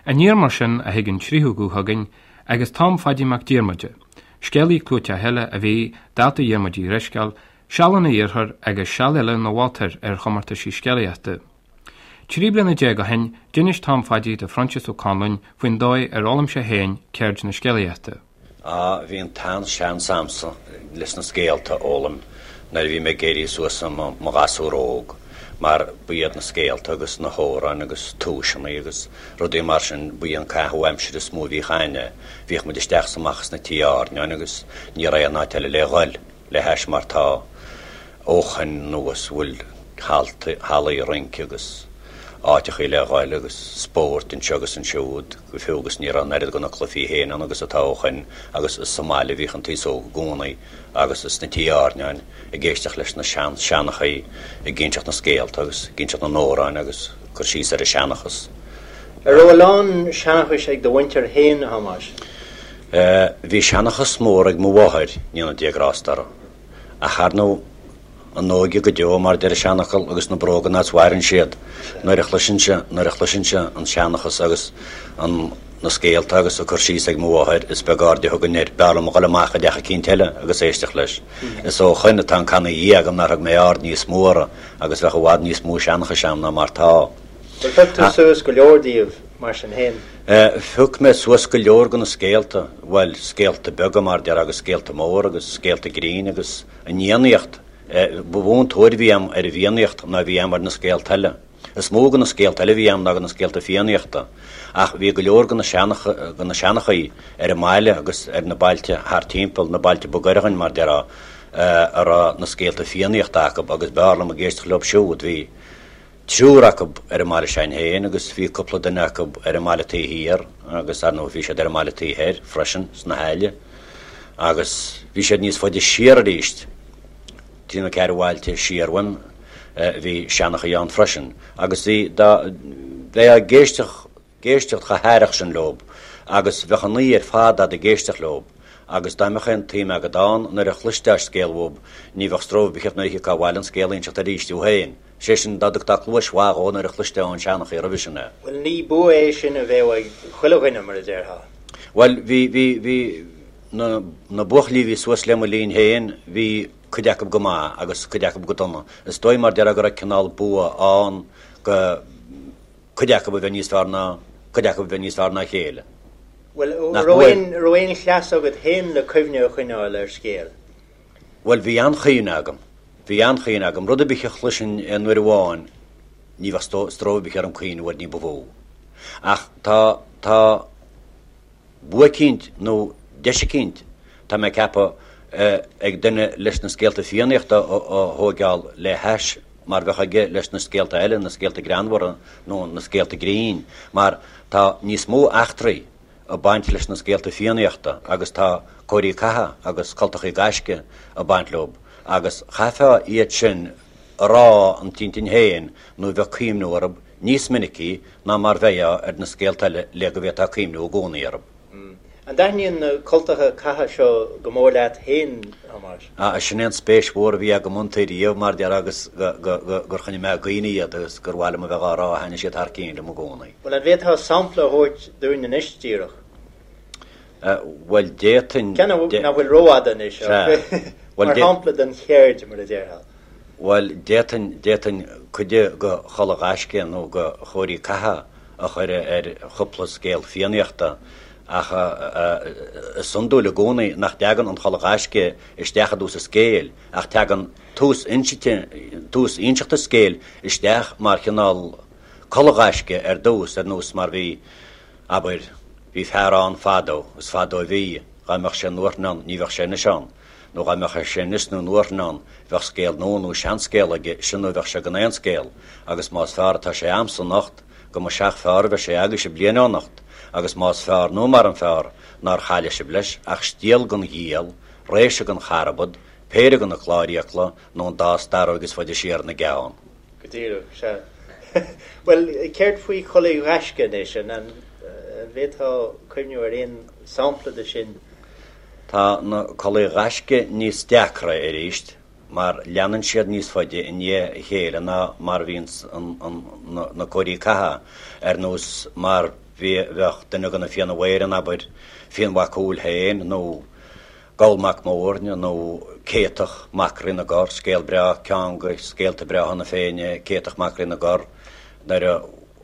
Aniar mar sin a thig an tríú guth chugainn agus Tom Phaidí Mac Diarmada, scéalaí clúiteach eile a bhí, dálta Dhiarmuid Uí Dhrisceoil, seal ina iarrthóir agus seal eile ina mholtóir ar chomórtaisí scéalaíochta. 13 bliana ó shin, d'inis Tom Phaidí do Phroinsias Ó Conluain faoin dóigh ar fhoghlaim sé féin ceird na scéalaíochta. Á, bhí an t-an-seans a'msa leis na scéalta a fhoghlaim nuair a bhí mé ag éirí suas i mo ghasúr óg, mar ba iad na scéalta agus na hamhráin agus tomhaiseanna agus rudaí mar sin, ba í an caitheamh aimsire is mó a bhíodh a'inne. Bhíodh muid isteach is amach sna tithe airneáin agus ní raibh aon áit eile le dhul. le hais mar tá ó shoin anuas bhfuil hallaí rince agus áiteachaí le ghoil agus spóirt anseo agus ansiúd go fiú agus ní raibh an oiread de na cluichí féin ann agus atá ó shoin agus is sa mbaile a bhíodh an t-aos óg i gcónaí agus sna tithe airneáin ag éisteacht leis na sean-seanchaí ag inseacht na scéalta agus ag inseacht na n-amhráin agus cur síos ar an seanchas. An raibh a lán seanchais ag do mhuintir féin, a Thomáis? Bhí seanchas mór ag mo mháthair, ndéana Dia grásta uirthi. Ach ar ndóigh, an óige go deo, mar a deir an seanfhocal, agus na bróga an áit a mhaireann siad. Nuair a chloisinnse, nuair a chloisinnse an seanchas agus an, na scéalta agus an cur síos ag mo mháthair, is beag aird a thugainn air. B'fhearr liom a dhul amach i dteach eicínt eile agus éisteacht leis. Is ó shoin atá an canna ina dhiaidh agam nár thug mé aird níos mó orthu agus bheadh i bhfad níos mó seanchais a'm ná mar tá. Bhuel, phioc tú suas go leor díobh, mar sin féin. Phioc mé suas go leor de na scéalta, bhuel, scéalta beaga mar a déarfá agus scéalta móra agus scéalta grinn agus an Fhiannaíocht. Ba mhó an tóir a bhí a'm ar an bhFiannaíocht ná a bhí a'm ar na scéalta eile. Is mó de na scéalta eile a bhí a'm ná de na scéalta Fiannaíochta. Ach bhí go leor de na de na seanchaí ar an mbaile agus ar na bailte thart timpeall, na bailte ba ghaire dhuinn mar a déarfá, a raibh na scéalta Fiannaíochta acu agus b'fhearr liom ag éisteacht leo siúd. Bhí. triúr acu ar an mbaile s'againn féin agus bhí cúpla duine acu ar an mbaile taobh thiar agus ar ndóigh bhí siad ar an mbaile taobh thoir freisin sna hAille agus bhí siad níos faide siar arís, trí nó ceathair bhailte siar uaim bhí seanchaí ann freisin agus bhí dá bheifeá ag éisteacht ag éisteacht chomh haireach sin leob agus bheadh an oíche ar fad a'd ag éisteacht leob agus dá mbeadh aon tsuim agad ann nuair a chloisteá scéal uaib ní bheadh stró ar bith ort nuair a thiocfá abhaile an scéal a inseacht arís thú féin. Sé sin, dá dtugtá cluais mhaith dhó nuair a chloisteá ón seanchaí roimhe sin é. Bhuel, ní bua é sin a bheadh ag chuile dhuine, mar a déarfá. Bhuel, bhí, bhí, bhí, na, na buachaillí a bhí suas le mo linn féin, bhí cuid acu go maith agus cuid acu go dona. Is dóigh mar déarfá go raibh cineál bua ann go, cuid acu a bheith níos fearr ná, cuid acu a bheith níos fearr ná a chéile. Bhuel, raibh aon, raibh aon chleas agat féin le cuimhne a choinneáil ar scéal? Bhuel, bhí an-chuimhne agam. Bhí an-chuimhne agam. Rud ar bith a chloisinn aon uair amháin, ní bheadh stró ar bith orm cuimhniú air ní ba mhó. Ach tá, tá bua eicínt nó deis eicínt, tá mé ag ceapadh, ag duine leis na scéalta Fiannaíochta a thóigeáil le hais mar bheadh aige leis na scéalta eile, na scéalta greannmhara nó na scéalta grinn, mar tá níos mó eachtraí ag baint leis na scéalta Fiannaíochta agus tá cóirí catha agus cultachaí gaisce ag baint leo agus chaithfeá iad sin a rá an t-intinn féin nó bheadh cuimhniú orthu níos minicí ná mar bheifeá ar na scéalta eile le go bhféadfá cuimhniú i gcónaí orthu. An dtaitníonn na cultacha catha seo go mór leat féin, a Thomáis? Ah, sin é an spéis mhór a bhí agam iontu riamh, mar déarfá, agus gur choinnigh mé i gcuimhne iad agus gur mhaith liom a bheith á rá, thaitnigh siad thar cinn liom i gcónaí. Bhuel, an bhféadfá sampla a thabhairt dúinn anois díreach? Bhuel, d'fhéadfainn. Ceann nach bhfuil rófhada anois, ach mar shampla den cheird, mar a déarfá. Bhuel, d'fhéadfainn, d'fhéadfainn cuid de chulaith ghaisce nó de chóirí catha a chur ar chúpla scéal Fiannaíochta ach is iondúil i gcónaí nach dtagann an chulaith ghaisce isteach i dtús an scéil ach tagann tús insinte, tús inseachta scéil isteach mar chineál culaith ghaisce ar dtús, ar nós mar bhí, abair, bhí fear ann fadó, is fadó a bhí, dhá mbeadh sé nuairthinn ann ní bheadh sé anois ann, nó dhá mbeadh sé anois nó nuairthinn ann bheadh scéal nua nó seanscéal aige, sin nó bheadh sé gan aon scéal, agus más fearr atá sé a'msa anocht, go mba seach fearr a bheidh sé agaibhse bliain ó anocht, agus más fearr nó mar an fearr nár chaille sibh leis ach stiall den ghiall, réise den charbad, péire de na cláir fhiacla, nó an dá starróig is faide siar ina gceann. Go díreach, sea. Bhuel, céard faoi chulaith ghaisce anois? An bhféadfá cuimhniú ar aon sampla de sin? Tá na culaith ghaisce níos deacra arís mar leanann siad níos faide i ndiaidh a chéile ná mar a bhíonns na cóirí catha, ar nós mar. Bhí, bheadh duine de na Fianna Mhaoir ann, abair, Fionn Mac Cumhaill féin nó Goll Mac Móirne nó Céatach Mac Rí na gCorr, scéal breá, ceann de scéalta breátha na Féinne, Céatach Mac Rí na gCorr, nuair a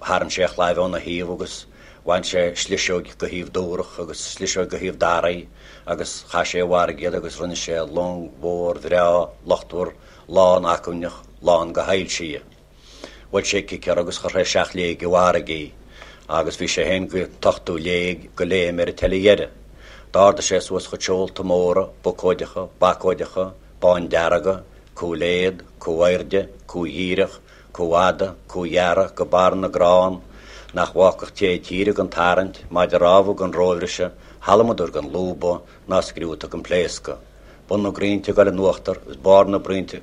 tharraing sé a chlaíomh óna thaobh agus bhain sé sliseoig de thaobh Dúrach agus sliseoig de thaobh Daraí agus chaith sé i bhfarraige iad agus rinne sé long mhór bhreá luchtmhar lán acmhainneach lán go shoilsí. Bhuail sé cic uirthi agus chuir sé seacht léig i bhfarraige í, agus bhí sé féin go t-ochtú léig go léim ar an teile dheiridh. D'ardaigh sé suas a chuid seolta móra, bocóideacha, bacóideacha, bándearga, cú léad, cú airde, cú dhíreach, cú fhada, cú ghearra, go barr na gcrann, nach bhfágfadh té tíre gan tarraingt, maide rámha gan róbhriseadh, halamadar gan lúbadh, ná scriúta gan pléascadh. Bun na gcrainnte ag dul in uachtar is barr na gcrainnte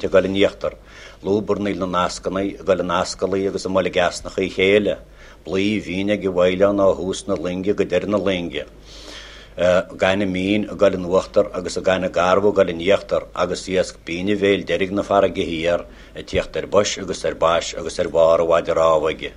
ag dul in íochtar, lúbarnaíl na nascannaí ag dul in ascaillí agus i mboilg easnacha a chéile, blaoth mhín ag an bhfaoileán ó thús na loinge go deireadh na loinge, gaineamh mín ag dul in uachtar agus an gaineamh garbh ag dul in íochtar agus iasc binn a bhéil deiridh na farraige thiar ag tíocht ar bois agus ar bais agus ar bharr a mhaide rámha aige.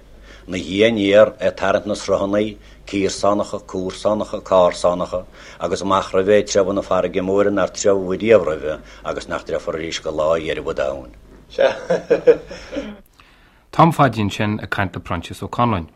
'Na dhiaidh aniar ag tarraingt na sruthannaí, cíorsánacha, cúrsánacha, cársánacha, agus amach roimhe ag treabhadh na farraige móire nár treabhadh riamh roimhe agus nach dtreabhfar arís go lá dheireadh an domhain. Sea. Tom Phaidí ansin ag caint le Proinsias Ó Conluain.